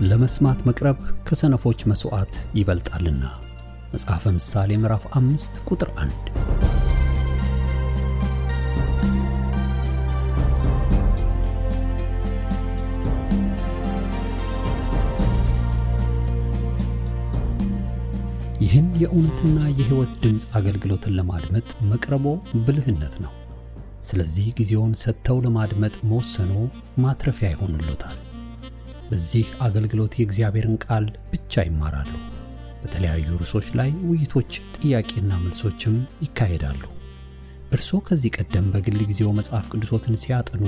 ለመስማት መቅረብ ከሰነፎች መስዋዕት ይበልጣልና። መጽሐፈ ምሳሌ ምዕራፍ 5 ቁጥር 1። ይህን የእውነትና የሕይወት ድምጽ አገልግሎትን ለማድመጥ መቅረቦ ብልህነት ነው። ስለዚህ ጊዜውን ሰጥተው ለማድመጥ መወሰኖ ማትረፊያ ይሆንልዎታል። በዚህ አገልግሎት የእግዚአብሔርን ቃል ብቻ ይማራሉ። በተለያዩ ርዕሶች ላይ ውይይቶች፣ ጥያቄና መልሶችም ይካሄዳሉ። እርስዎ ከዚህ ቀደም በግል ጊዜው መጽሐፍ ቅዱሶትን ሲያጠኑ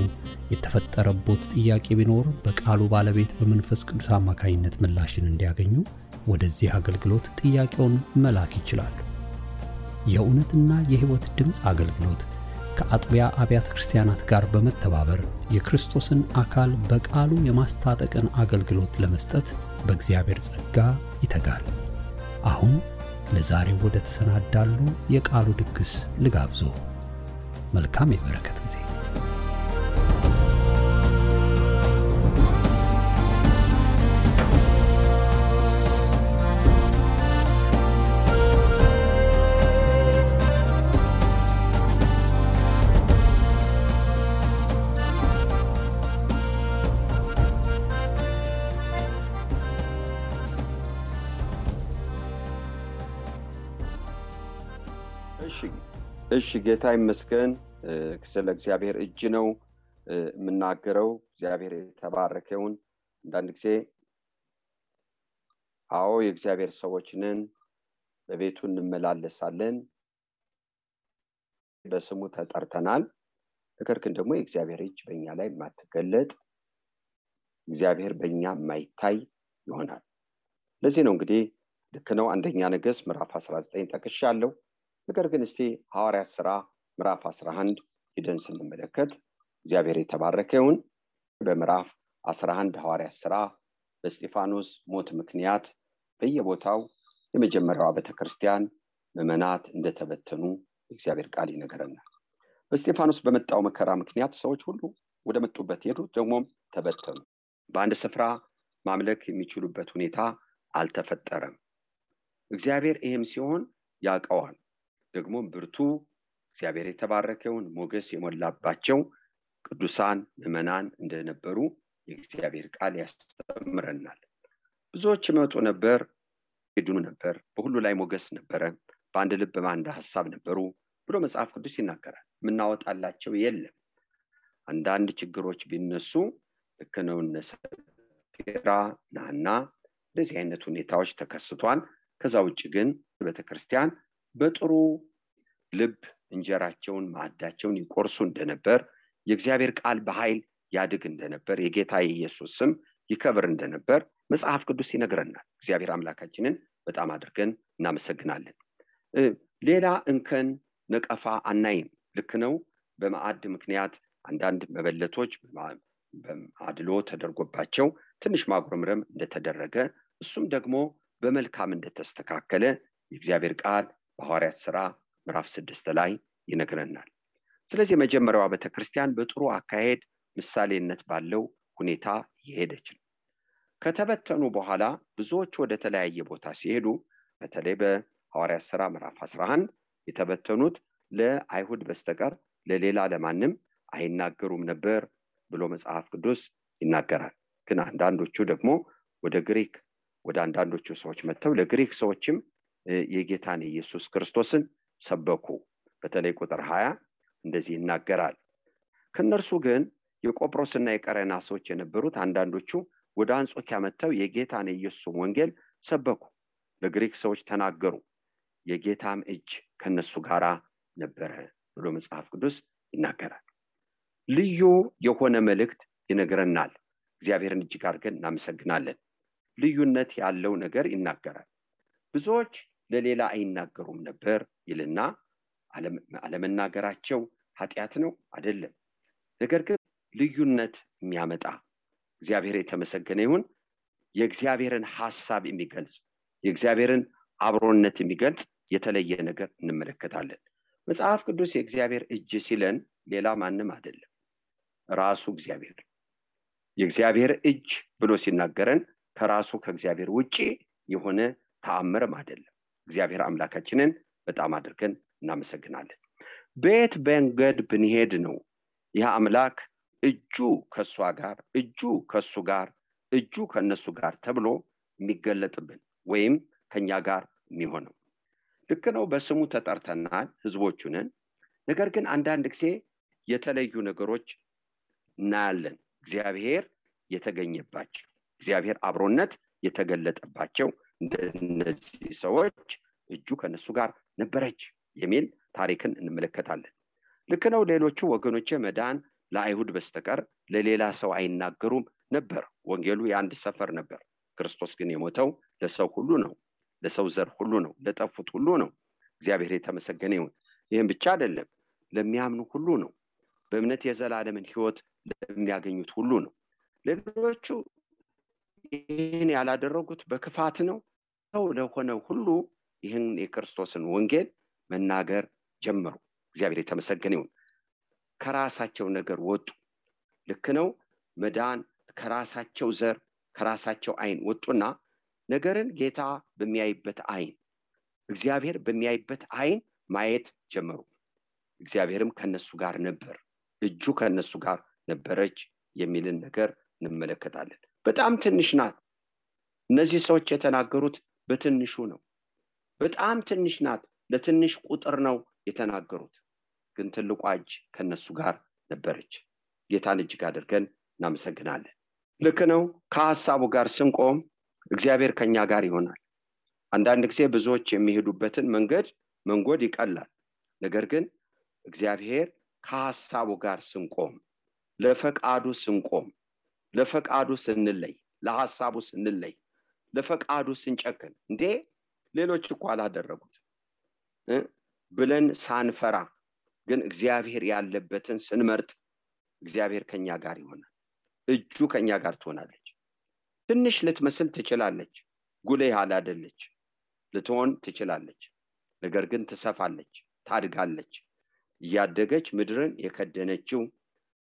የተፈጠረቦት ጥያቄ ቢኖር በቃሉ ባለቤት በመንፈስ ቅዱስ አማካኝነት ምላሽን እንዲያገኙ ወደዚህ አገልግሎት ጥያቄውን መላክ ይችላሉ። የእውነትና የሕይወት ድምጽ አገልግሎት ከአጥቢያ አብያተ ክርስቲያናት ጋር በመተባበር የክርስቶስን አካል በቃሉ የማስታጠቅን አገልግሎት ለመስጠት በእግዚአብሔር ጸጋ ይተጋል። አሁን ለዛሬው ወደ ተሰናዳሉ የቃሉ ድግስ ልጋብዞ። መልካም የበረከት ጊዜ። እሺ ጌታ ይመስገን። ስለ እግዚአብሔር እጅ ነው የምናገረው። እግዚአብሔር የተባረከውን። አንዳንድ ጊዜ የእግዚአብሔር ሰዎች ነን፣ በቤቱ እንመላለሳለን፣ በስሙ ተጠርተናል። ነገር ግን ደግሞ የእግዚአብሔር እጅ በእኛ ላይ ማትገለጥ፣ እግዚአብሔር በእኛ ማይታይ ይሆናል። ለዚህ ነው እንግዲህ ልክ ነው አንደኛ ነገሥት ምዕራፍ 19 ጠቅሻለሁ። ነገር ግን እስቲ ሐዋርያት ሥራ ምዕራፍ 11 ሄደን ስንመለከት እግዚአብሔር የተባረከውን በምዕራፍ 11 ሐዋርያት ሥራ በእስጢፋኖስ ሞት ምክንያት በየቦታው የመጀመሪያዋ ቤተክርስቲያን ምዕመናት እንደተበተኑ እግዚአብሔር ቃል ይነግረናል። በእስጢፋኖስ በመጣው መከራ ምክንያት ሰዎች ሁሉ ወደ መጡበት ሄዱ፣ ደግሞም ተበተኑ። በአንድ ስፍራ ማምለክ የሚችሉበት ሁኔታ አልተፈጠረም። እግዚአብሔር ይህም ሲሆን ያውቀዋል። ደግሞ ብርቱ እግዚአብሔር የተባረከውን ሞገስ የሞላባቸው ቅዱሳን ምዕመናን እንደነበሩ የእግዚአብሔር ቃል ያስተምረናል። ብዙዎች ይመጡ ነበር፣ ይድኑ ነበር፣ በሁሉ ላይ ሞገስ ነበረ፣ በአንድ ልብ በአንድ ሐሳብ ነበሩ ብሎ መጽሐፍ ቅዱስ ይናገራል። ምናወጣላቸው የለም። አንዳንድ ችግሮች ቢነሱ ልክ ነው፣ ሰፊራ ናና እንደዚህ አይነት ሁኔታዎች ተከስቷል። ከዛ ውጭ ግን ቤተክርስቲያን በጥሩ ልብ እንጀራቸውን ማዕዳቸውን ይቆርሱ እንደነበር፣ የእግዚአብሔር ቃል በኃይል ያድግ እንደነበር፣ የጌታ ኢየሱስ ስም ይከብር እንደነበር መጽሐፍ ቅዱስ ይነግረናል። እግዚአብሔር አምላካችንን በጣም አድርገን እናመሰግናለን። ሌላ እንከን ነቀፋ አናይም። ልክ ነው፣ በማዕድ ምክንያት አንዳንድ መበለቶች በአድሎ ተደርጎባቸው ትንሽ ማጉረምረም እንደተደረገ፣ እሱም ደግሞ በመልካም እንደተስተካከለ የእግዚአብሔር ቃል በሐዋርያት ሥራ ምዕራፍ 6 ላይ ይነግረናል። ስለዚህ የመጀመሪያዋ ቤተክርስቲያን በጥሩ አካሄድ ምሳሌነት ባለው ሁኔታ እየሄደች ነው። ከተበተኑ በኋላ ብዙዎች ወደ ተለያየ ቦታ ሲሄዱ፣ በተለይ በሐዋርያት ሥራ ምዕራፍ 11 የተበተኑት ለአይሁድ በስተቀር ለሌላ ለማንም አይናገሩም ነበር ብሎ መጽሐፍ ቅዱስ ይናገራል። ግን አንዳንዶቹ ደግሞ ወደ ግሪክ ወደ አንዳንዶቹ ሰዎች መጥተው ለግሪክ ሰዎችም የጌታን ኢየሱስ ክርስቶስን ሰበኩ። በተለይ ቁጥር 20 እንደዚህ ይናገራል። ከነርሱ ግን የቆጵሮስና የቀሬና ሰዎች የነበሩት አንዳንዶቹ ወደ አንጾኪያ መጥተው የጌታን ኢየሱስ ወንጌል ሰበኩ፣ ለግሪክ ሰዎች ተናገሩ፣ የጌታም እጅ ከነሱ ጋራ ነበረ ብሎ መጽሐፍ ቅዱስ ይናገራል። ልዩ የሆነ መልእክት ይነግረናል። እግዚአብሔርን እጅግ አድርገን እናመሰግናለን። ልዩነት ያለው ነገር ይናገራል። ብዙዎች ለሌላ አይናገሩም ነበር ይልና አለመናገራቸው ኃጢአት ነው አይደለም። ነገር ግን ልዩነት የሚያመጣ እግዚአብሔር የተመሰገነ ይሁን የእግዚአብሔርን ሐሳብ የሚገልጽ የእግዚአብሔርን አብሮነት የሚገልጽ የተለየ ነገር እንመለከታለን። መጽሐፍ ቅዱስ የእግዚአብሔር እጅ ሲለን ሌላ ማንም አይደለም፣ ራሱ እግዚአብሔር። የእግዚአብሔር እጅ ብሎ ሲናገረን ከራሱ ከእግዚአብሔር ውጪ የሆነ ተአምርም አይደለም። እግዚአብሔር አምላካችንን በጣም አድርገን እናመሰግናለን። በየት መንገድ ብንሄድ ነው ይህ አምላክ እጁ ከሷ ጋር፣ እጁ ከሱ ጋር፣ እጁ ከነሱ ጋር ተብሎ የሚገለጥብን ወይም ከኛ ጋር የሚሆነው? ልክ ነው፣ በስሙ ተጠርተናል፣ ህዝቦቹ ነን። ነገር ግን አንዳንድ ጊዜ የተለዩ ነገሮች እናያለን። እግዚአብሔር የተገኘባቸው፣ እግዚአብሔር አብሮነት የተገለጠባቸው እንደነዚህ ሰዎች እጁ ከነሱ ጋር ነበረች የሚል ታሪክን እንመለከታለን። ልክ ነው፣ ሌሎቹ ወገኖቼ መዳን ለአይሁድ በስተቀር ለሌላ ሰው አይናገሩም ነበር። ወንጌሉ የአንድ ሰፈር ነበር። ክርስቶስ ግን የሞተው ለሰው ሁሉ ነው፣ ለሰው ዘር ሁሉ ነው፣ ለጠፉት ሁሉ ነው። እግዚአብሔር የተመሰገነ ይሁን። ይህም ብቻ አይደለም፣ ለሚያምኑ ሁሉ ነው። በእምነት የዘላለምን ህይወት ለሚያገኙት ሁሉ ነው። ሌሎቹ ይህን ያላደረጉት በክፋት ነው። ሰው ለሆነው ሁሉ ይህን የክርስቶስን ወንጌል መናገር ጀመሩ። እግዚአብሔር የተመሰገነ ይሁን። ከራሳቸው ነገር ወጡ። ልክ ነው፣ መዳን ከራሳቸው ዘር ከራሳቸው አይን ወጡና ነገርን ጌታ በሚያይበት አይን፣ እግዚአብሔር በሚያይበት አይን ማየት ጀመሩ። እግዚአብሔርም ከነሱ ጋር ነበር፣ እጁ ከነሱ ጋር ነበረች የሚልን ነገር እንመለከታለን። በጣም ትንሽ ናት። እነዚህ ሰዎች የተናገሩት በትንሹ ነው። በጣም ትንሽ ናት፣ ለትንሽ ቁጥር ነው የተናገሩት። ግን ትልቋ እጅ ከነሱ ጋር ነበረች። ጌታን እጅግ አድርገን እናመሰግናለን። ልክ ነው፣ ከሐሳቡ ጋር ስንቆም እግዚአብሔር ከኛ ጋር ይሆናል። አንዳንድ ጊዜ ብዙዎች የሚሄዱበትን መንገድ ይቀላል። ነገር ግን እግዚአብሔር ከሐሳቡ ጋር ስንቆም፣ ለፈቃዱ ስንቆም፣ ለፈቃዱ ስንለይ፣ ለሐሳቡ ስንለይ፣ ለፈቃዱ ስንጨክን እንዴ ሌሎች እኮ አላደረጉት ብለን ሳንፈራ ግን እግዚአብሔር ያለበትን ስንመርጥ እግዚአብሔር ከኛ ጋር ይሆናል። እጁ ከኛ ጋር ትሆናለች። ትንሽ ልትመስል ትችላለች፣ ጉልህ ያላደለች ልትሆን ትችላለች። ነገር ግን ትሰፋለች፣ ታድጋለች። እያደገች ምድርን የከደነችው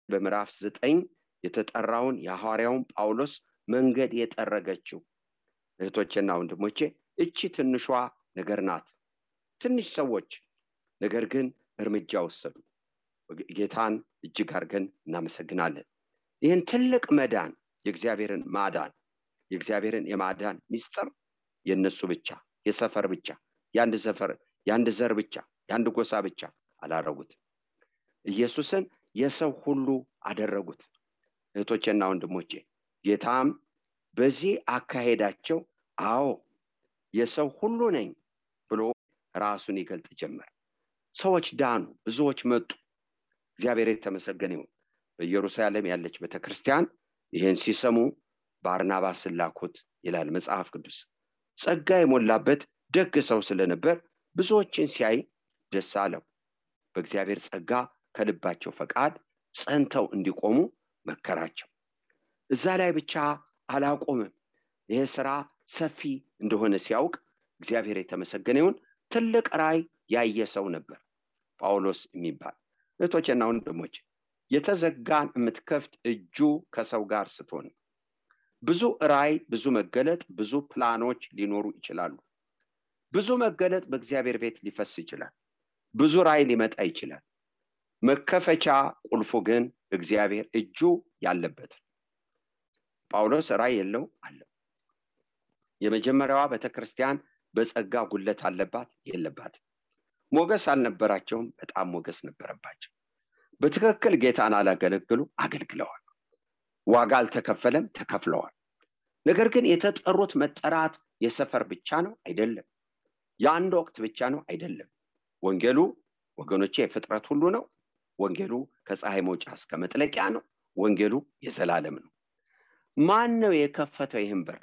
በምዕራፍ 9 የተጠራውን የሐዋርያውን ጳውሎስ መንገድ የጠረገችው እህቶቼና ወንድሞቼ እቺ ትንሿ ነገር ናት። ትንሽ ሰዎች ነገር ግን እርምጃ ወሰዱ። ጌታን እጅግ አድርገን እናመሰግናለን። ይህን ትልቅ መዳን፣ የእግዚአብሔርን ማዳን፣ የእግዚአብሔርን የማዳን ሚስጥር የነሱ ብቻ፣ የሰፈር ብቻ፣ የአንድ ሰፈር፣ የአንድ ዘር ብቻ፣ የአንድ ጎሳ ብቻ አላረጉት። ኢየሱስን የሰው ሁሉ አደረጉት። እህቶቼና ወንድሞቼ ጌታም በዚህ አካሄዳቸው አዎ የሰው ሁሉ ነኝ ብሎ ራሱን ይገልጥ ጀመር። ሰዎች ዳኑ፣ ብዙዎች መጡ። እግዚአብሔር የተመሰገነ ይሁን። በኢየሩሳሌም ያለች ቤተክርስቲያን ይህን ሲሰሙ ባርናባስን ላኩት ይላል መጽሐፍ ቅዱስ። ጸጋ የሞላበት ደግ ሰው ስለነበር ብዙዎችን ሲያይ ደስ አለው። በእግዚአብሔር ጸጋ ከልባቸው ፈቃድ ጸንተው እንዲቆሙ መከራቸው። እዛ ላይ ብቻ አላቆምም። ይሄ ስራ ሰፊ እንደሆነ ሲያውቅ እግዚአብሔር የተመሰገነ ይሁን ትልቅ ራእይ ያየ ሰው ነበር ጳውሎስ የሚባል። እህቶቼና ወንድሞቼ የተዘጋን የምትከፍት እጁ ከሰው ጋር ስትሆን ብዙ ራእይ፣ ብዙ መገለጥ፣ ብዙ ፕላኖች ሊኖሩ ይችላሉ። ብዙ መገለጥ በእግዚአብሔር ቤት ሊፈስ ይችላል። ብዙ ራእይ ሊመጣ ይችላል። መከፈቻ ቁልፉ ግን እግዚአብሔር እጁ ያለበት። ጳውሎስ ራእይ የለው አለው። የመጀመሪያዋ ቤተክርስቲያን በጸጋ ጉለት አለባት የለባት? ሞገስ አልነበራቸውም? በጣም ሞገስ ነበረባቸው። በትክክል ጌታን አላገለግሉ አገልግለዋል። ዋጋ አልተከፈለም፣ ተከፍለዋል። ነገር ግን የተጠሩት መጠራት የሰፈር ብቻ ነው አይደለም። የአንድ ወቅት ብቻ ነው አይደለም። ወንጌሉ ወገኖቼ የፍጥረት ሁሉ ነው። ወንጌሉ ከፀሐይ መውጫ እስከ መጥለቂያ ነው። ወንጌሉ የዘላለም ነው። ማን ነው የከፈተው ይህን በር?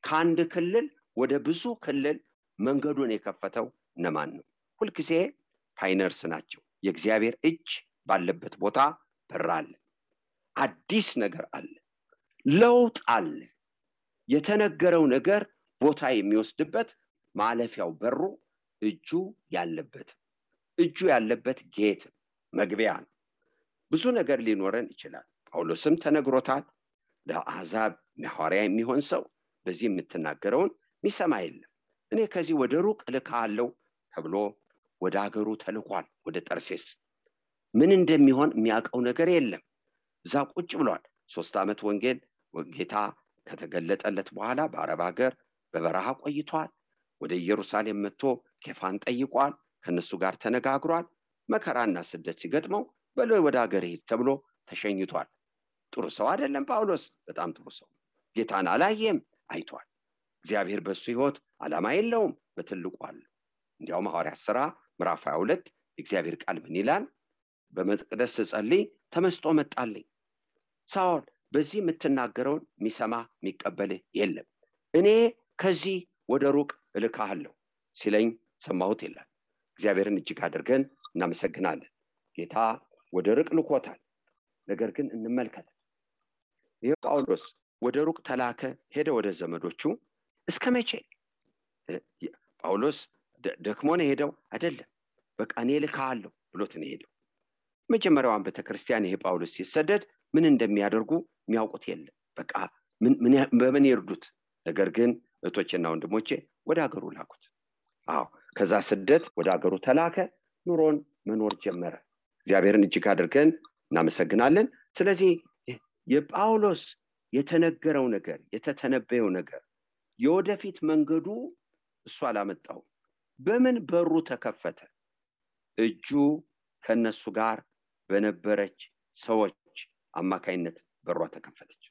ከአንድ ክልል ወደ ብዙ ክልል መንገዱን የከፈተው እነማን ነው? ሁልጊዜ ፓይነርስ ናቸው። የእግዚአብሔር እጅ ባለበት ቦታ በር አለ። አዲስ ነገር አለ። ለውጥ አለ። የተነገረው ነገር ቦታ የሚወስድበት ማለፊያው በሩ እጁ ያለበት ጌት መግቢያ ነው። ብዙ ነገር ሊኖረን ይችላል። ጳውሎስም ተነግሮታል። ለአሕዛብ ሐዋርያ የሚሆን ሰው በዚህ የምትናገረውን የሚሰማ የለም። እኔ ከዚህ ወደ ሩቅ እልካለሁ ተብሎ ወደ አገሩ ተልኳል። ወደ ጠርሴስ ምን እንደሚሆን የሚያውቀው ነገር የለም። እዛ ቁጭ ብሏል። 3 ዓመት ወንጌል ጌታ ከተገለጠለት በኋላ በአረብ ሀገር በበረሃ ቆይቷል። ወደ ኢየሩሳሌም መጥቶ ኬፋን ጠይቋል። ከነሱ ጋር ተነጋግሯል። መከራና ስደት ሲገጥመው በለው ወደ ሀገር ሄድ ተብሎ ተሸኝቷል። ጥሩ ሰው አይደለም ጳውሎስ? በጣም ጥሩ ሰው። ጌታን አላየም፣ አይቷል። እግዚአብሔር በሱ ሕይወት ዓላማ የለውም፣ በትልቁ አለ። እንዲያውም ሐዋርያት ሥራ ምዕራፍ 22 እግዚአብሔር ቃል ምን ይላል? በመቅደስ ስጸልይ ተመስጦ መጣልኝ። ሳኦል በዚህ የምትናገረውን የሚሰማ የሚቀበልህ የለም። እኔ ከዚህ ወደ ሩቅ እልካለሁ ሲለኝ ሰማሁት ይላል። እግዚአብሔርን እጅግ አድርገን እናመሰግናለን። ጌታ ወደ ሩቅ ልኮታል። ነገር ግን እንመልከት። ይሄ ጳውሎስ ወደ ሩቅ ተላከ፣ ሄደ ወደ ዘመዶቹ። እስከ መቼ? ጳውሎስ ደክሞ ነው ሄደው አይደለም። በቃ እኔ ልካለሁ ብሎት ነው ሄደው። መጀመሪያውን ቤተክርስቲያን ይሄ ጳውሎስ ሲሰደድ ምን እንደሚያደርጉ የሚያውቁት የለም። በቃ በምን ይርዱት? ነገር ግን እህቶቼና ወንድሞቼ ወደ ሀገሩ ላኩት። ከዛ ስደት ወደ ሀገሩ ተላከ፣ ኑሮን መኖር ጀመረ። እግዚአብሔርን እጅግ አድርገን እናመሰግናለን። ስለዚህ የጳውሎስ የተነገረው ነገር፣ የተተነበየው ነገር የወደፊት መንገዱ እሱ አላመጣው። በምን በሩ ተከፈተ? እጁ ከነሱ ጋር በነበረች ሰዎች አማካይነት በሯ ተከፈተች።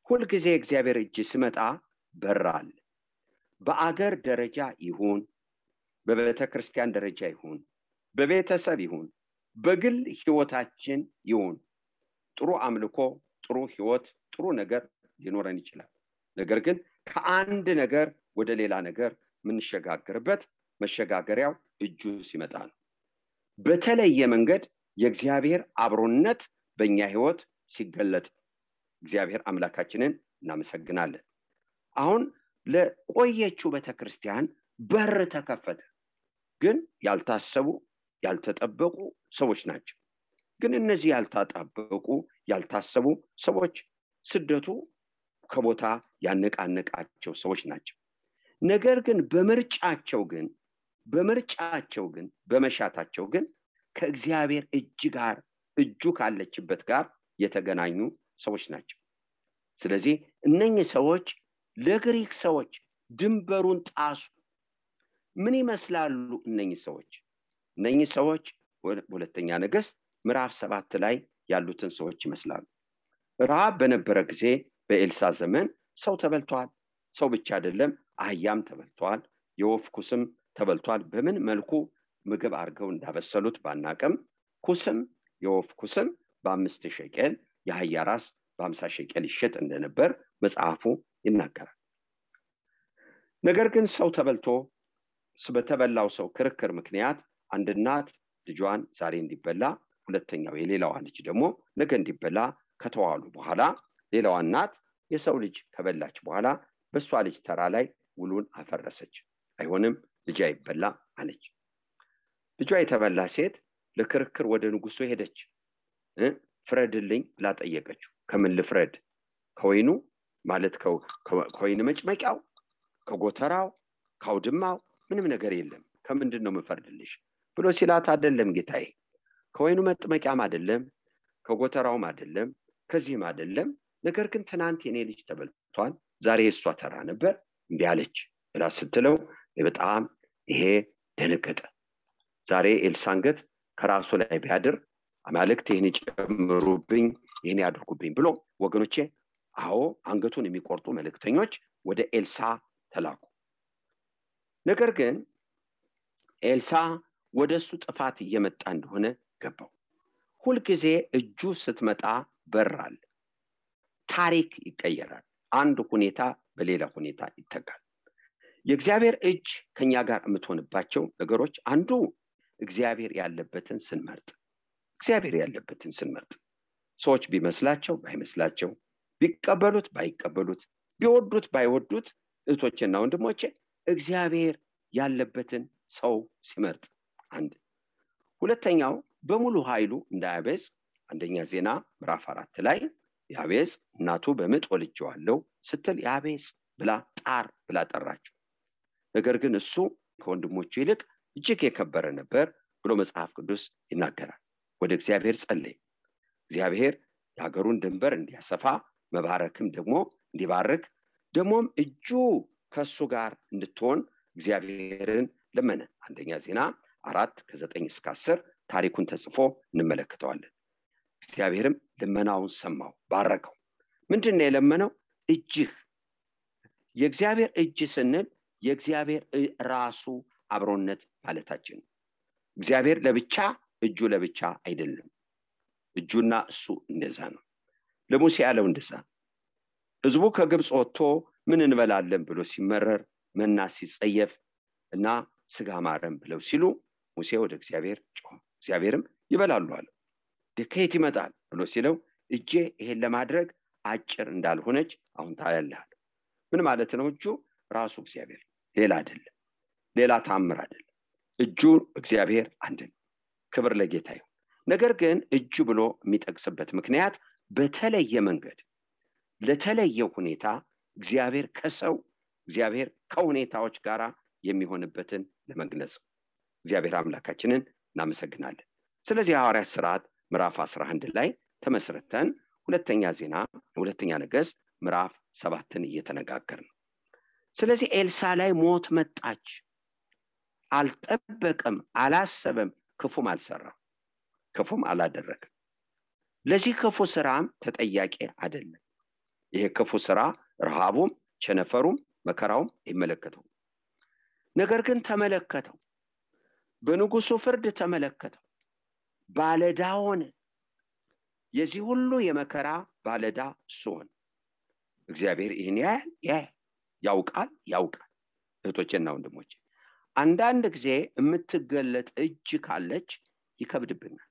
ሁል ጊዜ እግዚአብሔር እጅ ሲመጣ በራል። በአገር ደረጃ ይሁን፣ በቤተክርስቲያን ደረጃ ይሁን፣ በቤተሰብ ይሁን፣ በግል ህይወታችን ይሁን፣ ጥሩ አምልኮ፣ ጥሩ ህይወት፣ ጥሩ ነገር ሊኖረን ይችላል። ነገር ግን ከአንድ ነገር ወደ ሌላ ነገር ምንሸጋገርበት መሸጋገሪያው እጁ ሲመጣ ነው። በተለየ መንገድ የእግዚአብሔር አብሮነት በእኛ ህይወት ሲገለጥ እግዚአብሔር አምላካችንን እናመሰግናለን። አሁን ለቆየችው ቤተክርስቲያን በር ተከፈተ። ግን ያልታሰቡ ያልተጠበቁ ሰዎች ናቸው። ግን እነዚህ ያልተጠበቁ ያልታሰቡ ሰዎች ስደቱ ከቦታ ያነቃነቃቸው ሰዎች ናቸው። ነገር ግን በመሻታቸው ግን ከእግዚአብሔር እጁ ካለችበት ጋር የተገናኙ ሰዎች ናቸው። ስለዚህ እነኚህ ሰዎች ለግሪክ ሰዎች ድንበሩን ጣሱ። ምን ይመስላሉ እነኚህ ሰዎች? ሁለተኛ ነገሥት ምዕራፍ 7 ላይ ያሉትን ሰዎች ይመስላሉ። ረሃብ በነበረ ጊዜ በኤልሳ ዘመን ሰው ተበልቷል። ሰው ብቻ አይደለም፣ አህያም ተበልቷል፣ የወፍ ኩስም ተበልቷል። በምን መልኩ ምግብ አድርገው እንዳበሰሉት ባናቅም የወፍ ኩስም በ5 ሸቄል፣ የአህያ ራስ በ50 ሸቄል ይሸጥ እንደነበር መጽሐፉ ይናገራል። ነገር ግን ሰው ተበልቶ በተበላው ሰው ክርክር ምክንያት አንድ እናት ልጇን ዛሬ እንዲበላ፣ ሁለተኛው የሌላዋ ልጅ ደግሞ ነገ እንዲበላ ከተዋሉ በኋላ ሌላዋ እናት የሰው ልጅ ከበላች በኋላ በሷ ልጅ ተራ ላይ ውሉን አፈረሰች። አይሆንም፣ ልጅ አይበላ አለች። ልጇ የተበላ ሴት ለክርክር ወደ ንጉሱ ሄደች። ፍረድልኝ ብላ ጠየቀችው። ከምን ልፍረድ? ከወይኑ ማለት ከወይን መጭመቂያው፣ ከጎተራው፣ ከአውድማው ምንም ነገር የለም። ከምንድን ነው የምፈርድልሽ ብሎ ሲላት፣ አይደለም ጌታዬ፣ ከወይኑ መጥመቂያም አይደለም፣ ከጎተራውም አይደለም፣ ከዚህም አይደለም። ነገር ግን ትናንት የኔ ልጅ ተበልቷል፣ ዛሬ የሷ ተራ ነበር እንዲህ አለች ብላ ስትለው በጣም ይሄ ደነገጠ። ዛሬ ኤልሳንገት ከራሱ ላይ ቢያድር አማልክት ይህን ጨምሩብኝ፣ ይህን ያድርጉብኝ ብሎ ወገኖቼ፣ አንገቱን የሚቆርጡ መልእክተኞች ወደ ኤልሳ ተላኩ። ነገር ግን ኤልሳ ወደሱ ጥፋት እየመጣ እንደሆነ ገባው። ሁልጊዜ እጁ ስትመጣ በራል፣ ታሪክ ይቀየራል። አንድ ሁኔታ በሌላ ሁኔታ ይተካል። የእግዚአብሔር እጅ ከኛ ጋር የምትሆንባቸው ነገሮች አንዱ እግዚአብሔር ያለበትን ስንመርጥ ሰዎች ቢመስላቸው ባይመስላቸው፣ ቢቀበሉት ባይቀበሉት፣ ቢወዱት ባይወዱት፣ እህቶቼና ወንድሞቼ እግዚአብሔር ያለበትን ሰው ሲመርጥ አንድ። ሁለተኛው በሙሉ ኃይሉ እንዳያቤዝ አንደኛ ዜና ምዕራፍ 4 ላይ ያቤዝ እናቱ በምጥ ወልጄዋለሁ ስትል ያቤዝ ብላ ጣር ብላ ጠራችው። ነገር ግን እሱ ከወንድሞቹ ይልቅ እጅግ የከበረ ነበር ብሎ መጽሐፍ ቅዱስ ይናገራል። ወደ እግዚአብሔር ጸለየ። እግዚአብሔር የሀገሩን ድንበር እንዲያሰፋ መባረክም ደግሞ እንዲባርክ ደግሞም እጁ ከሱ ጋር እንድትሆን እግዚአብሔርን ለመነ። አንደኛ ዜና 4:9-10 ታሪኩን ተጽፎ እንመለከተዋለን። እግዚአብሔርም ልመናውን ሰማው፣ ባረከው። ምንድነው የለመነው? እጅህ። የእግዚአብሔር እጅ ስንል የእግዚአብሔር ራሱ አብሮነት ማለታችን። እግዚአብሔር ለብቻ እጁ ለብቻ አይደለም። እጁና እሱ እንደዛ ነው። ለሙሴ ያለው እንደዛ። ህዝቡ ከግብጽ ወጥቶ ምን እንበላለን ብሎ ሲመረር መና ሲጸየፍ እና ስጋ ማረም ብለው ሲሉ ሙሴ ወደ እግዚአብሔር ጮኸ። እግዚአብሔርም ይበላሉ አለ። ከየት ይመጣል ብሎ ሲለው እጄ ይሄን ለማድረግ አጭር እንዳልሆነች አሁን ታያለህ። ምን ማለት ነው? እጁ ራሱ እግዚአብሔር፣ ሌላ አይደለም፣ ሌላ ታምር አይደለም። እጁ እግዚአብሔር አንድ ነው። ክብር ለጌታ ይሁን። ነገር ግን እጁ ብሎ የሚጠቅስበት ምክንያት በተለየ መንገድ ለተለየ ሁኔታ እግዚአብሔር ከሰው እግዚአብሔር ከሁኔታዎች ጋር የሚሆንበትን ለመግለጽ እግዚአብሔር አምላካችንን እናመሰግናለን። ስለዚህ ሐዋርያት ሥርዓት ምዕራፍ 11 ላይ ተመስርተን ሁለተኛ ነገሥት ምዕራፍ 7ን እየተነጋገርን ነው። ስለዚህ ኤልሳ ላይ ሞት መጣች። አልጠበቀም፣ አላሰበም፣ ክፉም አልሰራም፣ ክፉም አላደረገም። ለዚህ ክፉ ስራም ተጠያቂ አይደለም። ይሄ ክፉ ስራ ረሃቡም ቸነፈሩም መከራውም ይመለከተው። ነገር ግን ተመለከተው፣ በንጉሱ ፍርድ ተመለከተው፣ ባለዳ ሆነ። የዚህ ሁሉ የመከራ ባለዳ እሱ ሆነ። እግዚአብሔር ይህን ያውቃል። እህቶቼና ወንድሞቼ፣ አንዳንድ ጊዜ የምትገለጥ እጅ ካለች ይከብድብናል።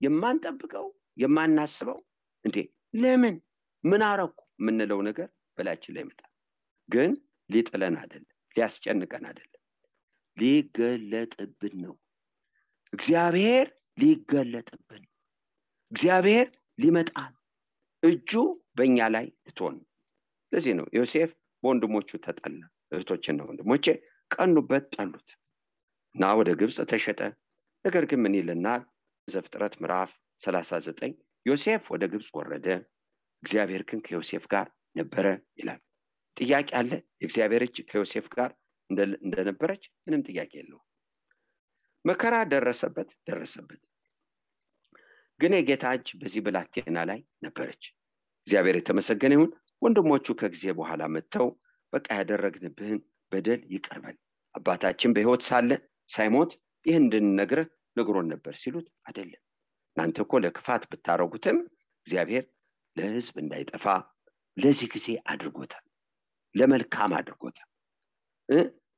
የማንጠብቀው የማናስበው እንዴ ለምን ምን አረኩ ምንለው ነገር በላችን ላይ ይመጣል። ግን ሊጥለን አይደለም፣ ሊያስጨንቀን አይደለም፣ ሊገለጥብን ነው። እግዚአብሔር ሊገለጥብን፣ እግዚአብሔር ሊመጣል፣ እጁ በእኛ ላይ ልትሆን። ለዚህ ነው ዮሴፍ በወንድሞቹ ተጠላ። እህቶችና ወንድሞቼ ቀኑበት፣ ጠሉት እና ወደ ግብጽ ተሸጠ። ነገር ግን ምን ይለናል? ዘፍጥረት ምዕራፍ 39 ዮሴፍ ወደ ግብጽ ወረደ፣ እግዚአብሔር ግን ከዮሴፍ ጋር ነበረ ይላል። ጥያቄ አለ? የእግዚአብሔር እጅ ከዮሴፍ ጋር እንደነበረች ምንም ጥያቄ የለውም። መከራ ደረሰበት፣ ግን የጌታ እጅ በዚህ ብላቴና ላይ ነበረች። እግዚአብሔር የተመሰገነ ይሁን። ወንድሞቹ ከጊዜ በኋላ መጥተው በቃ ያደረግንብህን በደል ይቅር በል፣ አባታችን በሕይወት ሳለ ሳይሞት ይህን እንድንነግርህ ነግሮን ነበር ሲሉት፣ አይደለም እናንተ እኮ ለክፋት ብታረጉትም እግዚአብሔር ለሕዝብ እንዳይጠፋ ለዚህ ጊዜ አድርጎታል፣ ለመልካም አድርጎታል።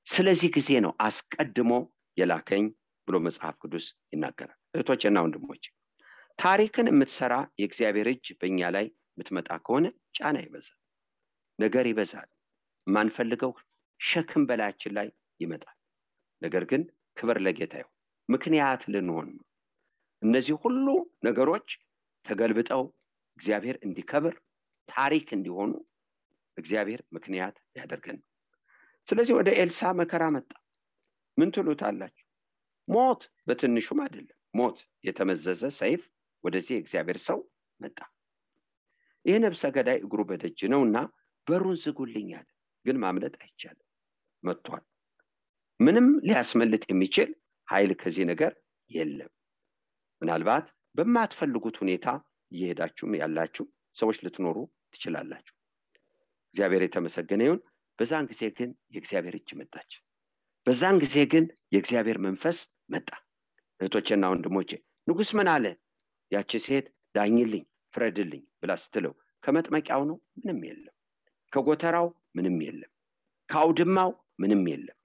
ስለዚህ ጊዜ ነው አስቀድሞ የላከኝ ብሎ መጽሐፍ ቅዱስ ይናገራል። እህቶቼና ወንድሞቼ፣ ታሪክን የምትሰራ የእግዚአብሔር እጅ በእኛ ላይ የምትመጣ ከሆነ ጫና ይበዛል፣ ነገር ይበዛል፣ ማንፈልገው ሸክም በላያችን ላይ ይመጣል። ነገር ግን ክብር ለጌታ ይሁን፣ ምክንያት ልንሆን ነው። እነዚህ ሁሉ ነገሮች ተገልብጠው እግዚአብሔር እንዲከብር ታሪክ እንዲሆኑ እግዚአብሔር ምክንያት ያደርገን። ስለዚህ ወደ ኤልሳ መከራ መጣ። ምን ትሉታላችሁ? ሞት በትንሹም አይደለም፣ ሞት የተመዘዘ ሰይፍ ወደዚህ እግዚአብሔር ሰው መጣ። ይህ ነፍሰ ገዳይ እግሩ በደጅ ነውና በሩን ዝጉልኛል። ግን ማምለጥ አይቻልም፣ መጥቷል። ምንም ሊያስመልጥ የሚችል ኃይል ከዚህ ነገር የለም። ምናልባት በማትፈልጉት ሁኔታ እየሄዳችሁም ያላችሁ ሰዎች ልትኖሩ ትችላላችሁ። እግዚአብሔር የተመሰገነ ይሁን። በዛን ጊዜ ግን የእግዚአብሔር እጅ መጣች። በዛን ጊዜ ግን የእግዚአብሔር መንፈስ መጣ። እህቶቼና ወንድሞቼ፣ ንጉሥ ምን አለ? ያቺ ሴት ዳኝልኝ፣ ፍረድልኝ ብላ ስትለው ከመጥመቂያው ነው ምንም የለም፣ ከጎተራው ምንም የለም፣ ከአውድማው ምንም የለም፣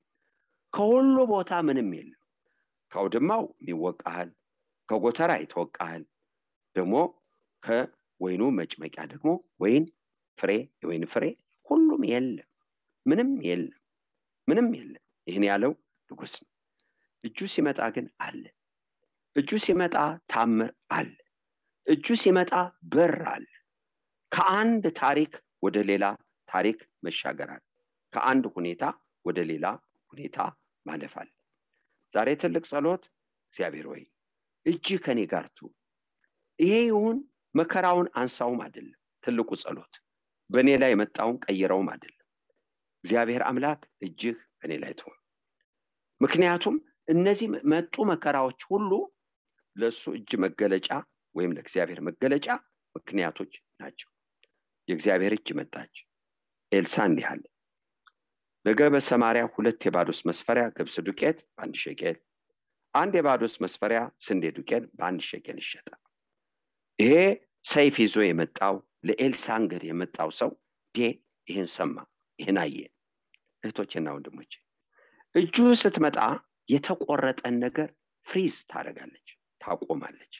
ከሁሉ ቦታ ምንም የለም። ከአውድማው ይወቃሃል፣ ከጎተራ ይተወቃሃል፣ ደግሞ ከወይኑ መጭመቂያ ደግሞ ወይን ፍሬ የወይን ፍሬ ሁሉም የለም፣ ምንም የለም። ይህን ያለው ንጉሥ ነው። እጁ ሲመጣ ግን አለ። እጁ ሲመጣ ታምር አለ። እጁ ሲመጣ በር አለ። ከአንድ ታሪክ ወደ ሌላ ታሪክ መሻገር አለ። ከአንድ ሁኔታ ወደ ሌላ ሁኔታ ማለፍ አለ። ዛሬ ትልቅ ጸሎት፣ እግዚአብሔር ሆይ እጅህ ከኔ ጋር ትሁን። ይሄ ይሁን መከራውን አንሳውም አይደለም ትልቁ ጸሎት፣ በእኔ ላይ የመጣውን ቀይረውም አይደለም። እግዚአብሔር አምላክ እጅህ በእኔ ላይ ትሁን። ምክንያቱም እነዚህ መጡ መከራዎች ሁሉ ለሱ እጅ መገለጫ ወይም ለእግዚአብሔር መገለጫ ምክንያቶች ናቸው። የእግዚአብሔር እጅ መጣች። ኤልሳ እንዲህ አለ፣ ነገ በሰማርያ 2 የባዶስ መስፈሪያ ገብስ ዱቄት በ1 ሸቄል፣ 1 የባዶስ መስፈሪያ ስንዴ ዱቄት በ1 ሸቄል ይሸጣል። ይሄ ሰይፍ ይዞ የመጣው ለኤልሳ እንግዲህ የመጣው ሰው ይሄን ሰማ፣ ይሄን አየ። እህቶቼና ወንድሞቼ እጁ ስትመጣ የተቆረጠን ነገር ፍሪዝ ታደርጋለች፣ ታቆማለች፣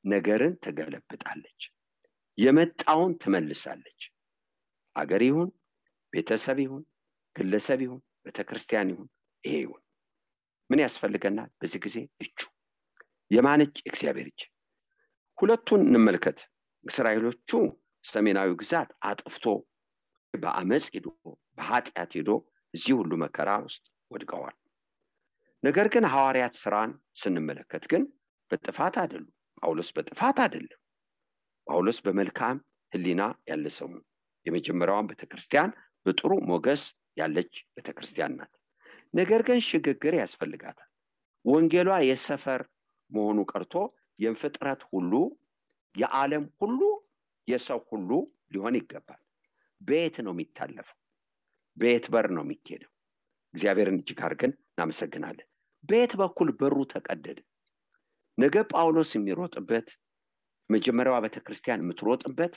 ነገርን ትገለብጣለች፣ የመጣውን ትመልሳለች። አገር ይሁን ቤተሰብ ይሁን ግለሰብ ይሁን ቤተክርስቲያን ይሁን ይሄ ይሁን ምን ያስፈልገናል? በዚህ ጊዜ እጁ የማን እጅ? እግዚአብሔር እጅ። ሁለቱን እንመልከት። እስራኤሎቹ ሰሜናዊ ግዛት አጥፍቶ በአመጽ ሄዶ በኃጢአት ሄዶ እዚህ ሁሉ መከራ ውስጥ ወድቀዋል። ነገር ግን ሐዋርያት ሥራን ስንመለከት ግን በጥፋት አይደሉም። ጳውሎስ በጥፋት አይደለም። ጳውሎስ በመልካም ሕሊና ያለ ሰው ነው። የመጀመሪያዋን ቤተክርስቲያን በጥሩ ሞገስ ያለች ቤተክርስቲያን ናት። ነገር ግን ሽግግር ያስፈልጋታል። ወንጌሏ የሰፈር መሆኑ ቀርቶ የፍጥረት ሁሉ የዓለም ሁሉ የሰው ሁሉ ሊሆን ይገባል። ቤት ነው የሚታለፈው፣ ቤት በር ነው የሚኬደው። እግዚአብሔርን እጅግ አድርገን እናመሰግናለን። ቤት በኩል በሩ ተቀደደ። ነገ ጳውሎስ የሚሮጥበት መጀመሪያዋ ቤተክርስቲያን የምትሮጥበት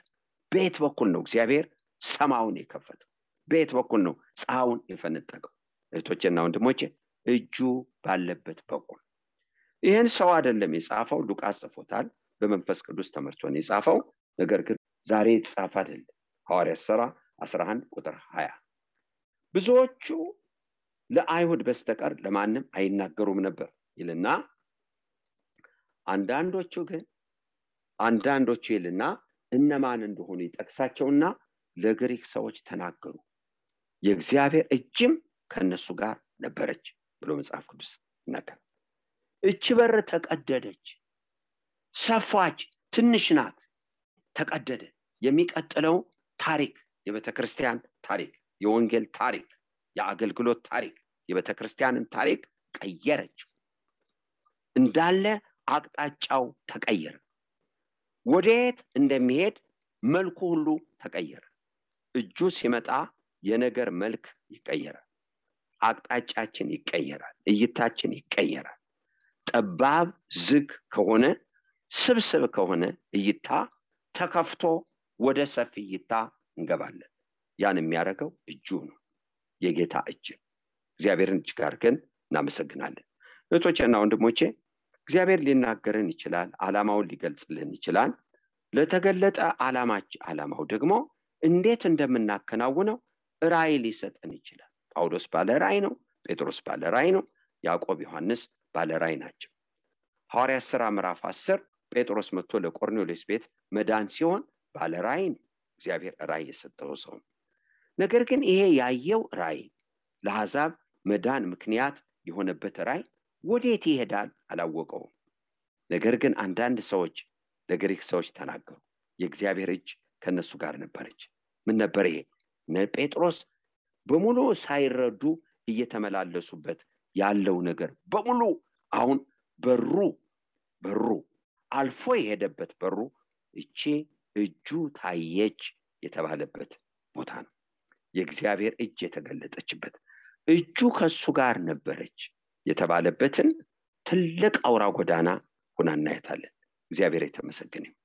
ቤት በኩል ነው። እግዚአብሔር ሰማውን የከፈተው ቤት በኩል ነው። ፀሐዩን የፈነጠቀው። እህቶቼና ወንድሞቼ እጁ ባለበት በኩል ይህን ሰው አይደለም የጻፈው፣ ሉቃስ ጽፎታል። በመንፈስ ቅዱስ ተመርቶ ነው የጻፈው። ነገር ግን ዛሬ የተጻፈ አይደለም። ሐዋርያት ሥራ 11 ቁጥር 20 ብዙዎቹ ለአይሁድ በስተቀር ለማንም አይናገሩም ነበር ይልና አንዳንዶቹ ይልና እነማን እንደሆኑ ይጠቅሳቸውና ለግሪክ ሰዎች ተናገሩ፣ የእግዚአብሔር እጅም ከነሱ ጋር ነበረች ብሎ መጽሐፍ ቅዱስ ይናገራል። እቺ በር ተቀደደች፣ ሰፋች፣ ትንሽ ናት፣ ተቀደደ። የሚቀጥለው ታሪክ የቤተክርስቲያን ታሪክ፣ የወንጌል ታሪክ፣ የአገልግሎት ታሪክ፣ የቤተክርስቲያንን ታሪክ ቀየረች። እንዳለ አቅጣጫው ተቀየረ። ወዴት እንደሚሄድ መልኩ ሁሉ ተቀየረ። እጁ ሲመጣ የነገር መልክ ይቀየራል። አቅጣጫችን ይቀየራል። እይታችን ይቀየራል። ጠባብ ዝግ ከሆነ ስብስብ ከሆነ እይታ ተከፍቶ ወደ ሰፊ እይታ እንገባለን። ያን የሚያደርገው እጁ ነው፣ የጌታ እጅ። እግዚአብሔርን እጅግ አድርገን እናመሰግናለን። እህቶቼና ወንድሞቼ እግዚአብሔር ሊናገረን ይችላል፣ ዓላማውን ሊገልጽልን ይችላል። ለተገለጠ ዓላማው ደግሞ እንዴት እንደምናከናውነው ራእይ ሊሰጠን ይችላል። ጳውሎስ ባለ ራእይ ነው፣ ጴጥሮስ ባለ ራእይ ነው፣ ያዕቆብ ዮሐንስ ባለ ራእይ ናቸው። ሐዋርያት ሥራ ምዕራፍ 10 ጴጥሮስ መጥቶ ለቆርኔሌዎስ ቤት መዳን ሲሆን ባለ ራእይ ነው፣ እግዚአብሔር ራእይ የሰጠው ሰው ነው። ነገር ግን ይሄ ያየው ራእይ ለአሕዛብ መዳን ምክንያት የሆነበት ራእይ ወዴት ይሄዳል አላወቀውም። ነገር ግን አንዳንድ ሰዎች ለግሪክ ሰዎች ተናገሩ፣ የእግዚአብሔር እጅ ከነሱ ጋር ነበረች። ምን ነበር ይሄ? ጴጥሮስ በሙሉ ሳይረዱ እየተመላለሱበት ያለው ነገር በሙሉ አሁን በሩ አልፎ የሄደበት በሩ እቺ እጁ ታየች የተባለበት ቦታ ነው። የእግዚአብሔር እጅ የተገለጠችበት፣ እጁ ከሱ ጋር ነበረች የተባለበትን ትልቅ አውራ ጎዳና ሆና እናያታለን። እግዚአብሔር የተመሰገነ ይሁን።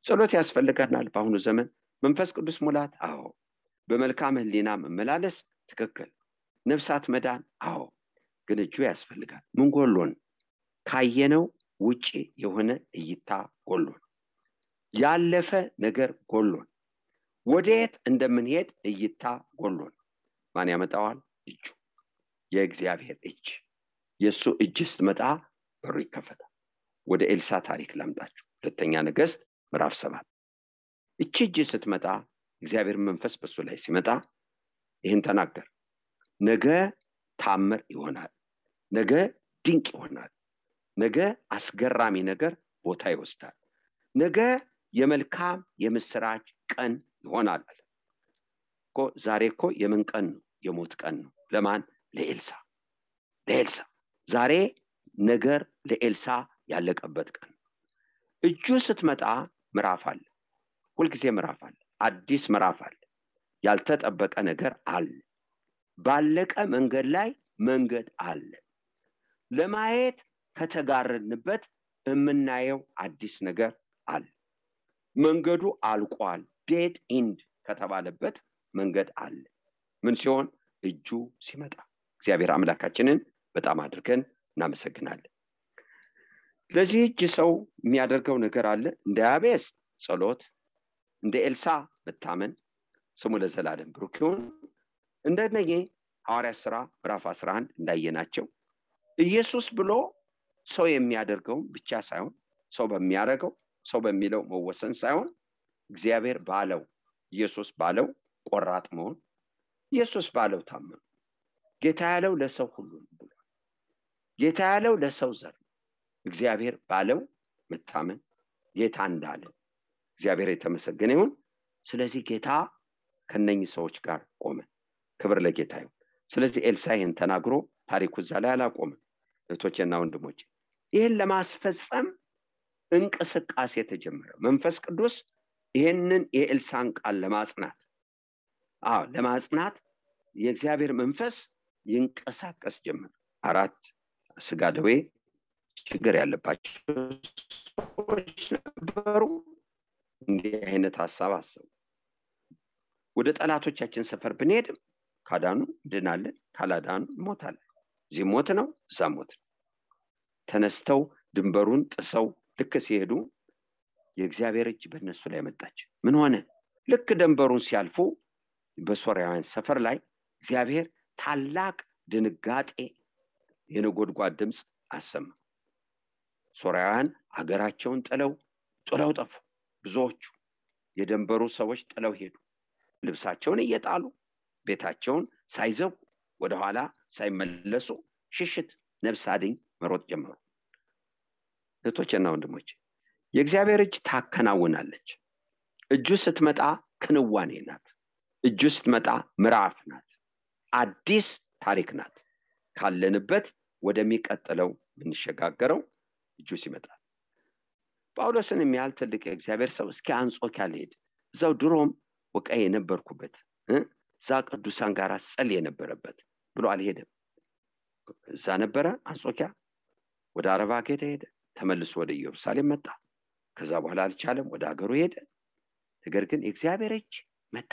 ጸሎት ያስፈልገናል በአሁኑ ዘመን። መንፈስ ቅዱስ ሙላት፣ አዎ። በመልካም ሕሊና መመላለስ፣ ትክክል። ነፍሳት መዳን፣ አዎ። ግን እጁ ያስፈልጋል። ምን ጎሎን? ካየነው ውጪ የሆነ እይታ ጎሎን፣ ያለፈ ነገር ጎሎን፣ ወዴት እንደምንሄድ እይታ ጎሎን። ማን ያመጣዋል? እጁ፣ የእግዚአብሔር እጅ። የሱ እጅ ስትመጣ በሩ ይከፈታል። ወደ ኤልሳ ታሪክ ላምጣችሁ። ሁለተኛ ነገሥት ምዕራፍ 7 እቺ እጅ ስትመጣ እግዚአብሔር መንፈስ በሱ ላይ ሲመጣ ይህን ተናገር። ነገ ታምር ይሆናል፣ ነገ ድንቅ ይሆናል፣ ነገ አስገራሚ ነገር ቦታ ይወስዳል፣ ነገ የመልካም የምስራች ቀን ይሆናል እኮ። ዛሬ እኮ የምን ቀን ነው? የሞት ቀን ነው። ለማን? ለኤልሳ። ዛሬ ነገር ለኤልሳ ያለቀበት ቀን። እጁ ስትመጣ ምዕራፍ አለ፣ ሁልጊዜ ምዕራፍ አለ፣ አዲስ ምዕራፍ አለ፣ ያልተጠበቀ ነገር አለ፣ ባለቀ መንገድ ላይ መንገድ አለ። ለማየት ከተጋረድንበት የምናየው አዲስ ነገር አለ። መንገዱ አልቋል፣ ዴድ ኢንድ ከተባለበት መንገድ አለ። ምን ሲሆን? እጁ ሲመጣ። እግዚአብሔር አምላካችንን በጣም አድርገን እናመሰግናለን። ለዚህ እጅ ሰው የሚያደርገው ነገር አለ። እንደ ያቤስ ጸሎት፣ እንደ ኤልሳ መታመን፣ ስሙ ለዘላለም ብሩክ ይሁን። እንደነኚህ ሐዋርያት ሥራ ምዕራፍ 11 እንዳየናቸው ኢየሱስ ብሎ ሰው የሚያደርገው ብቻ ሳይሆን ሰው በሚያደርገው ሰው በሚለው መወሰን ሳይሆን እግዚአብሔር ባለው ኢየሱስ ባለው ቆራጥ መሆን፣ ኢየሱስ ባለው ታመኑ። ጌታ ያለው ለሰው ሁሉ ብሎ ጌታ ያለው ለሰው ዘር፣ እግዚአብሔር ባለው መታመን፣ ጌታ እንዳለ እግዚአብሔር የተመሰገነ ይሁን። ስለዚህ ጌታ ከነኚህ ሰዎች ጋር ቆመ። ክብር ለጌታ ይሁን። ስለዚህ ኤልሳዕን ተናግሮ ታሪኩ እዛ ላይ አላቆመም። እህቶቼና ወንድሞቼ ይህን ለማስፈጸም እንቅስቃሴ ተጀመረ። መንፈስ ቅዱስ ይህንን የኤልሳዕን ቃል ለማጽናት የእግዚአብሔር መንፈስ ይንቀሳቀስ ጀመረ። 4 ስጋ ደዌ ችግር ያለባቸው ሰዎች ነበሩ። እንዲህ አይነት ሐሳብ አሰቡ። ወደ ጠላቶቻችን ሰፈር ብንሄድም ካዳኑ ድናለን፣ ካላዳኑ ሞታለን። እዚህ ሞት ነው፣ እዛ ሞት ነው። ተነስተው ድንበሩን ጥሰው ልክ ሲሄዱ የእግዚአብሔር እጅ በእነሱ ላይ መጣች። ምን ሆነ? ልክ ድንበሩን ሲያልፉ በሶርያውያን ሰፈር ላይ እግዚአብሔር ታላቅ ድንጋጤ፣ የነጎድጓድ ድምፅ አሰማ። ሶርያውያን ሀገራቸውን ጥለው ጠፉ። ብዙዎቹ የድንበሩ ሰዎች ጥለው ሄዱ። ልብሳቸውን እየጣሉ ቤታቸውን ሳይዘጉ ወደኋላ ሳይመለሱ ሽሽት፣ ነፍስ አድኝ መሮጥ ጀመሩ። እህቶቼና ወንድሞቼ የእግዚአብሔር እጅ ታከናውናለች። እጁ ስትመጣ ክንዋኔ ናት። እጁ ስትመጣ ምዕራፍ ናት። አዲስ ታሪክ ናት። ካለንበት ወደሚቀጥለው የምንሸጋገረው እጁ ሲመጣ። ጳውሎስን የሚያህል ትልቅ የእግዚአብሔር ሰው እስኪ አንጾኪያ ልሄድ፣ እዛው ድሮም ወቃይ የነበርኩበት እዛ ቅዱሳን ጋር ጸልይ የነበረበት ብሎ አልሄደም። እዛ ነበረ አንጾኪያ። ወደ አረብ ሀገር ሄደ፣ ተመልሶ ወደ ኢየሩሳሌም መጣ። ከዛ በኋላ አልቻለም፣ ወደ ሀገሩ ሄደ። ነገር ግን የእግዚአብሔር እጅ መጣ።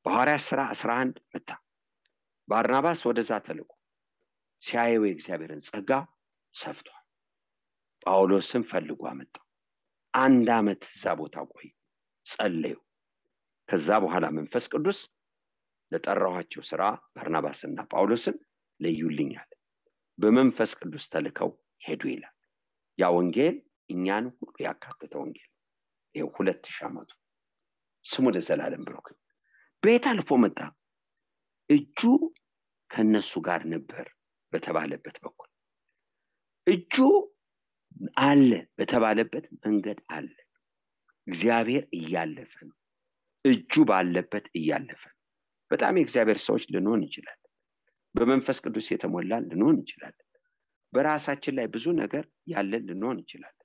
በሐዋርያት ሥራ 11 መጣ። ባርናባስ ወደዛ ተልኮ ሲያየው የእግዚአብሔርን ጸጋ ሰፍቷል። ጳውሎስን ፈልጎ አመጣ። 1 ዓመት እዛ ቦታ ቆይ ጸለዩ። ከዛ በኋላ መንፈስ ቅዱስ ለጠራኋቸው ሥራ ባርናባስና ጳውሎስን ለዩልኛል። በመንፈስ ቅዱስ ተልከው ሄዱ ይላል። ያ ወንጌል እኛን ሁሉ ያካተተ ወንጌል ይሄ 2000 ዓመቱ ስሙ ለዘላለም ብሩክ። ቤት አልፎ መጣ። እጁ ከነሱ ጋር ነበር በተባለበት በኩል እጁ አለ በተባለበት መንገድ አለ። እግዚአብሔር እያለፈ ነው። እጁ ባለበት እያለፈ ነው። በጣም የእግዚአብሔር ሰዎች ልንሆን ይችላል። በመንፈስ ቅዱስ የተሞላን ልንሆን ይችላል። በራሳችን ላይ ብዙ ነገር ያለን ልንሆን ይችላል።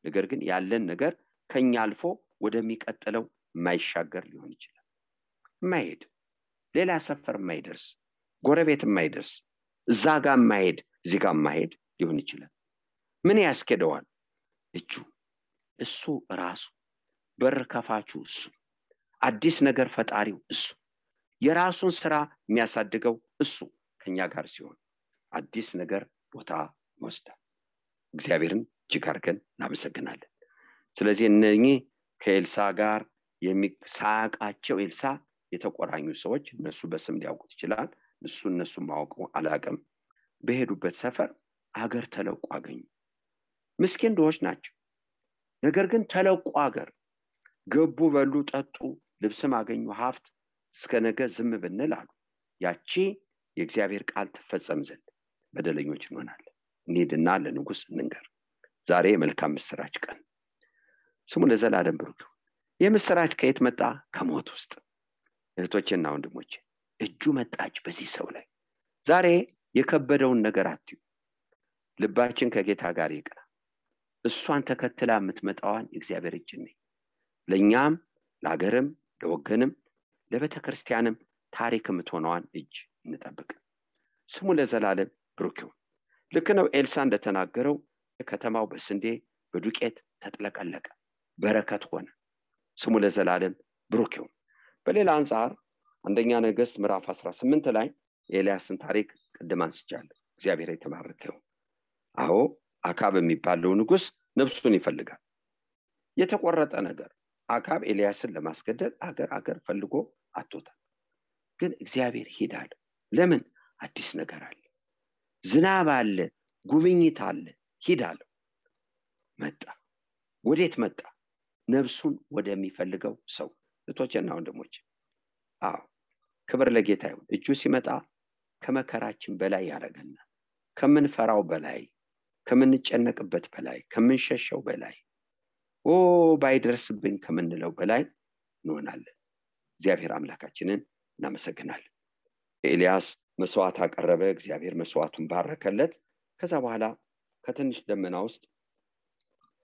ነገር ግን ያለን ነገር ከኛ አልፎ ወደሚቀጥለው የማይሻገር ሊሆን ይችላል። የማይሄድ ሌላ ሰፈር የማይደርስ ጎረቤት የማይደርስ እዛ ጋር የማይሄድ እዚህ ጋር የማይሄድ ሊሆን ይችላል። ምን ያስኬደዋል? እጁ። እሱ ራሱ በር ከፋቹ እሱ፣ አዲስ ነገር ፈጣሪው እሱ፣ የራሱን ስራ የሚያሳድገው እሱ ከኛ ጋር ሲሆን አዲስ ነገር ቦታ ይወስዳል። እግዚአብሔርን እጅግ አድርገን እናመሰግናለን። ስለዚህ እነኚህ ከኤልሳዕ ጋር ሳያውቃቸው ኤልሳዕ የተቆራኙ ሰዎች እነሱ በስም ሊያውቁት ይችላል። እነሱ ማወቁ አላውቅም። በሄዱበት ሰፈር አገር ተለቆ አገኙ። ምስኪን ድሆች ናቸው። ነገር ግን ተለቆ አገር ገቡ፣ በሉ፣ ጠጡ፣ ልብስም አገኙ ሀብት እስከ ነገ ዝም ብንል አሉ ያቺ የእግዚአብሔር ቃል ትፈጸም ዘንድ በደለኞች እንሆናለን። እንሂድና ለንጉሥ እንንገር። ዛሬ መልካም ምስራች ቀን ስሙ ለዘላለም ብሩክ ይሁን። የምስራች ከየት መጣ? ከሞት ውስጥ። እህቶቼና ወንድሞቼ እጁ መጣች በዚህ ሰው ላይ። ዛሬ የከበደውን ነገር አትዩ። ልባችን ከጌታ ጋር ይቅና። እሷን ተከትላ የምትመጣዋን እግዚአብሔር እጅ ነኝ። ለኛም ለሀገርም ለወገንም ለቤተክርስቲያንም ታሪክ የምትሆነዋን እጅ እንጠብቅ። ስሙ ለዘላለም ብሩክ ይሁን። ልክ ነው ኤልሳ እንደተናገረው ከተማው በስንዴ በዱቄት ተጥለቀለቀ፣ በረከት ሆነ። ስሙ ለዘላለም ብሩክ ይሁን። በሌላ አንፃር አንደኛ ነገሥት ምዕራፍ 18 ላይ የኤልያስን ታሪክ ቅድም አንስቻለሁ። እግዚአብሔር የተባረከ ይሁን። አዎ አካብ የሚባለው ንጉሥ ነፍሱን ይፈልጋል። የተቆረጠ ነገር አካብ ኤልያስን ለማስገደል አገር ፈልጎ አጥቶታል። ግን እግዚአብሔር ሂዳል። ለምን? አዲስ ነገር አለ፣ ዝናብ አለ፣ ጉብኝት አለ። ሂዳል። መጣ። ወዴት መጣ? ነፍሱን ወደሚፈልገው ሰው። እህቶቼና ወንድሞቼ አዎ ክብር ለጌታ ይሁን። እጁ ሲመጣ ከመከራችን በላይ ያደርገናል። ከምንፈራው በላይ፣ ከምንጨነቅበት በላይ፣ ከምንሸሸው በላይ፣ ባይደርስብኝ ከምንለው በላይ እንሆናለን። እግዚአብሔር አምላካችንን እናመሰግናለን። ኤልያስ መስዋዕት አቀረበ። እግዚአብሔር መስዋዕቱን ባረከለት። ከዛ በኋላ ከትንሽ ደመና ውስጥ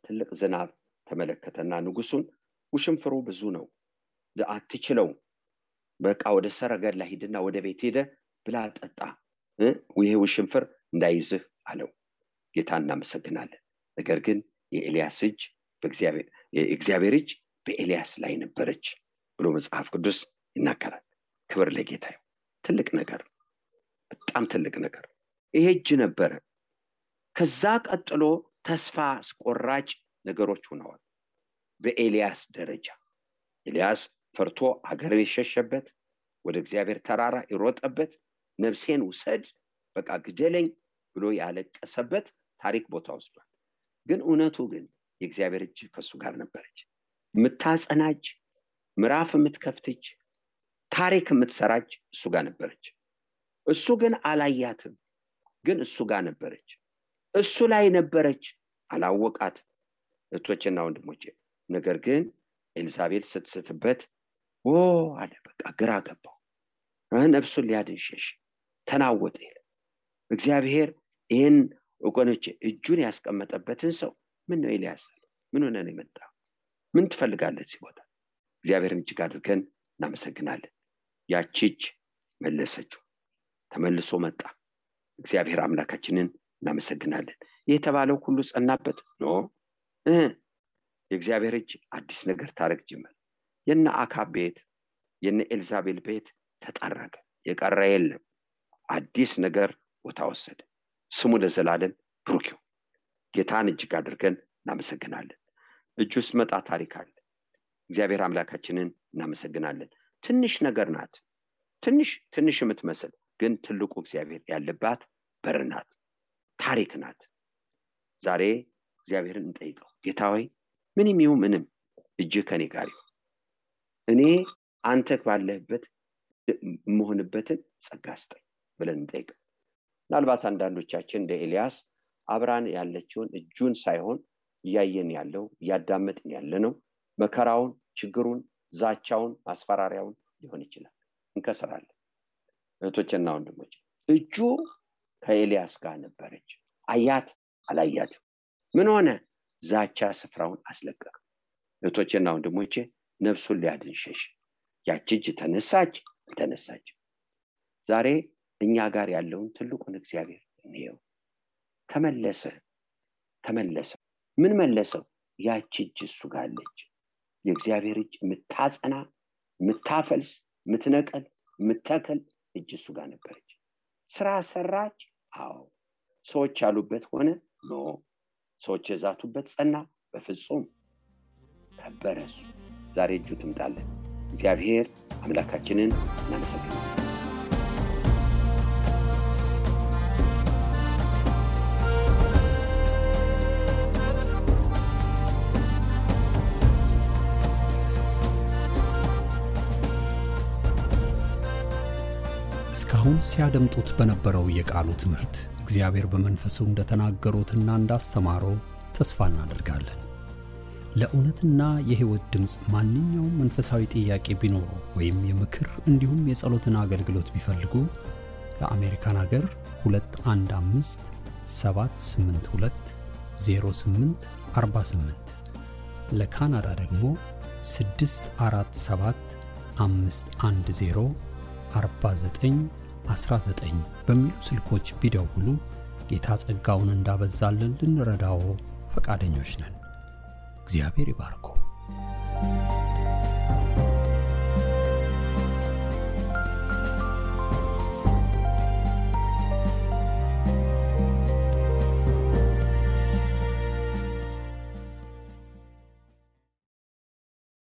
ትልቅ ዝናብ ተመለከተና ንጉሱን ውሽንፍሩ ብዙ ነው አትችለው፣ በቃ ወደ ሰረገላ ሂድና ወደ ቤት ሄደ ብላ ጠጣ፣ ይሄ ውሽንፍር እንዳይዝህ አለው። ጌታ እናመሰግናለን። ነገር ግን የኤልያስ እጅ የእግዚአብሔር እጅ በኤልያስ ላይ ነበረች ብሎ መጽሐፍ ቅዱስ ይናገራል። ክብር ለጌታ ይሁን። ትልቅ ነገር፣ በጣም ትልቅ ነገር ይሄ እጅ ነበረ። ከዛ ቀጥሎ ተስፋ አስቆራጭ ነገሮች ሆነዋል። በኤልያስ ደረጃ ኤልያስ ፈርቶ አገር የሸሸበት፣ ወደ እግዚአብሔር ተራራ ይሮጠበት፣ ነፍሴን ውሰድ በቃ ግደለኝ ብሎ ያለቀሰበት ታሪክ ቦታ ወስዷል። ግን እውነቱ ግን የእግዚአብሔር እጅ ከሱ ጋር ነበረች። የምታጸናጅ፣ ምዕራፍ የምትከፍትች፣ ታሪክ የምትሰራች እሱ ጋር ነበረች። እሱ ግን አላያትም። ግን እሱ ጋር ነበረች። እሱ ላይ ነበረች፣ አላወቃትም። እህቶቼና ወንድሞቼ ነገር ግን ኤልዛቤል ስትስትበት አለ በቃ ግራ ገባው። ነፍሱን ሊያድን ሸሽ፣ ተናወጠ። እግዚአብሔር ይህን ወገኖቼ እጁን ያስቀመጠበትን ሰው ምን ነው ኤልያስ ምን ሆነ ነው የመጣው? ምን ትፈልጋለህ እዚህ ቦታ? እግዚአብሔርን እጅግ አድርገን እናመሰግናለን። ያቺ እጅ መለሰችው፣ ተመልሶ መጣ። እግዚአብሔር አምላካችንን እናመሰግናለን። የተባለው ሁሉ ጸናበት ነው። የእግዚአብሔር እጅ አዲስ ነገር ታረግ ጀመረ። የነ አካብ ቤት የነ ኤልዛቤል ቤት ተጠረገ፣ የቀረ የለም። አዲስ ነገር ቦታ ወሰደ። ስሙ ለዘላለም ብሩክ ይሁን። ጌታን እጅግ አድርገን እናመሰግናለን። እጁ ሲመጣ ታሪክ አለ። እግዚአብሔር አምላካችንን እናመሰግናለን። ትንሽ ነገር ናት፣ ትንሽ የምትመስል ግን ትልቁ እግዚአብሔር ያለባት በር ናት፣ ታሪክ ናት። ዛሬ እግዚአብሔርን እንጠይቀው። ጌታ ሆይ ምንም ይሁን ምንም እጅህ ከኔ ጋር ይሁን፣ እኔ አንተ ባለህበት መሆንበትን ጸጋ ስጠኝ ብለን እንጠይቀው። ምናልባት አንዳንዶቻችን እንደ ኤልያስ አብራን ያለችውን እጁን ሳይሆን እያየን ያለው እያዳመጥን ያለነው መከራውን፣ ችግሩን፣ ዛቻውን፣ ማስፈራሪያውን ሊሆን ይችላል። እንከስራለን። እህቶቼና ወንድሞቼ እጁ ከኤልያስ ጋር ነበረች። አያት አላያትም። ምን ሆነ? ዛቻ ስፍራውን አስለቀቀ። እህቶቼና ወንድሞቼ ነፍሱን ሊያድን ሸሽ። ያቺ እጅ ተነሳች አልተነሳች። ዛሬ እኛ ጋር ያለውን ትልቁን እግዚአብሔር እንየው። ተመለሰ። ምን መለሰው? ያቺ እጅ እሱ ጋር አለች። የእግዚአብሔር እጅ የምታጸና፣ የምታፈልስ፣ የምትነቀል፣ የምትተክል እጅ እሱ ጋር ነበረች። ስራ ሰራች። አዎ። ሰዎች ያሉበት ሆነ? ኖ። ሰዎች የዛቱበት ጸና? በፍጹም። ከበረ እሱ። ዛሬ እጁ ትምጣለን። እግዚአብሔር አምላካችንን እናመሰግናለን። እስካሁን ሲያደምጡት በነበረው የቃሉ ትምህርት እግዚአብሔር በመንፈሱ እንደተናገሩትና እንዳስተማረው ተስፋ እናደርጋለን። ለእውነትና የሕይወት ድምጽ ማንኛውም መንፈሳዊ ጥያቄ ቢኖሩ ወይም የምክር እንዲሁም የጸሎትን አገልግሎት ቢፈልጉ ለአሜሪካን ሀገር 215 782 0848 ለካናዳ ደግሞ 647 510 4919 በሚሉ ስልኮች ቢደውሉ ጌታ ጸጋውን እንዳበዛልን ልንረዳው ፈቃደኞች ነን። እግዚአብሔር ይባርኮ።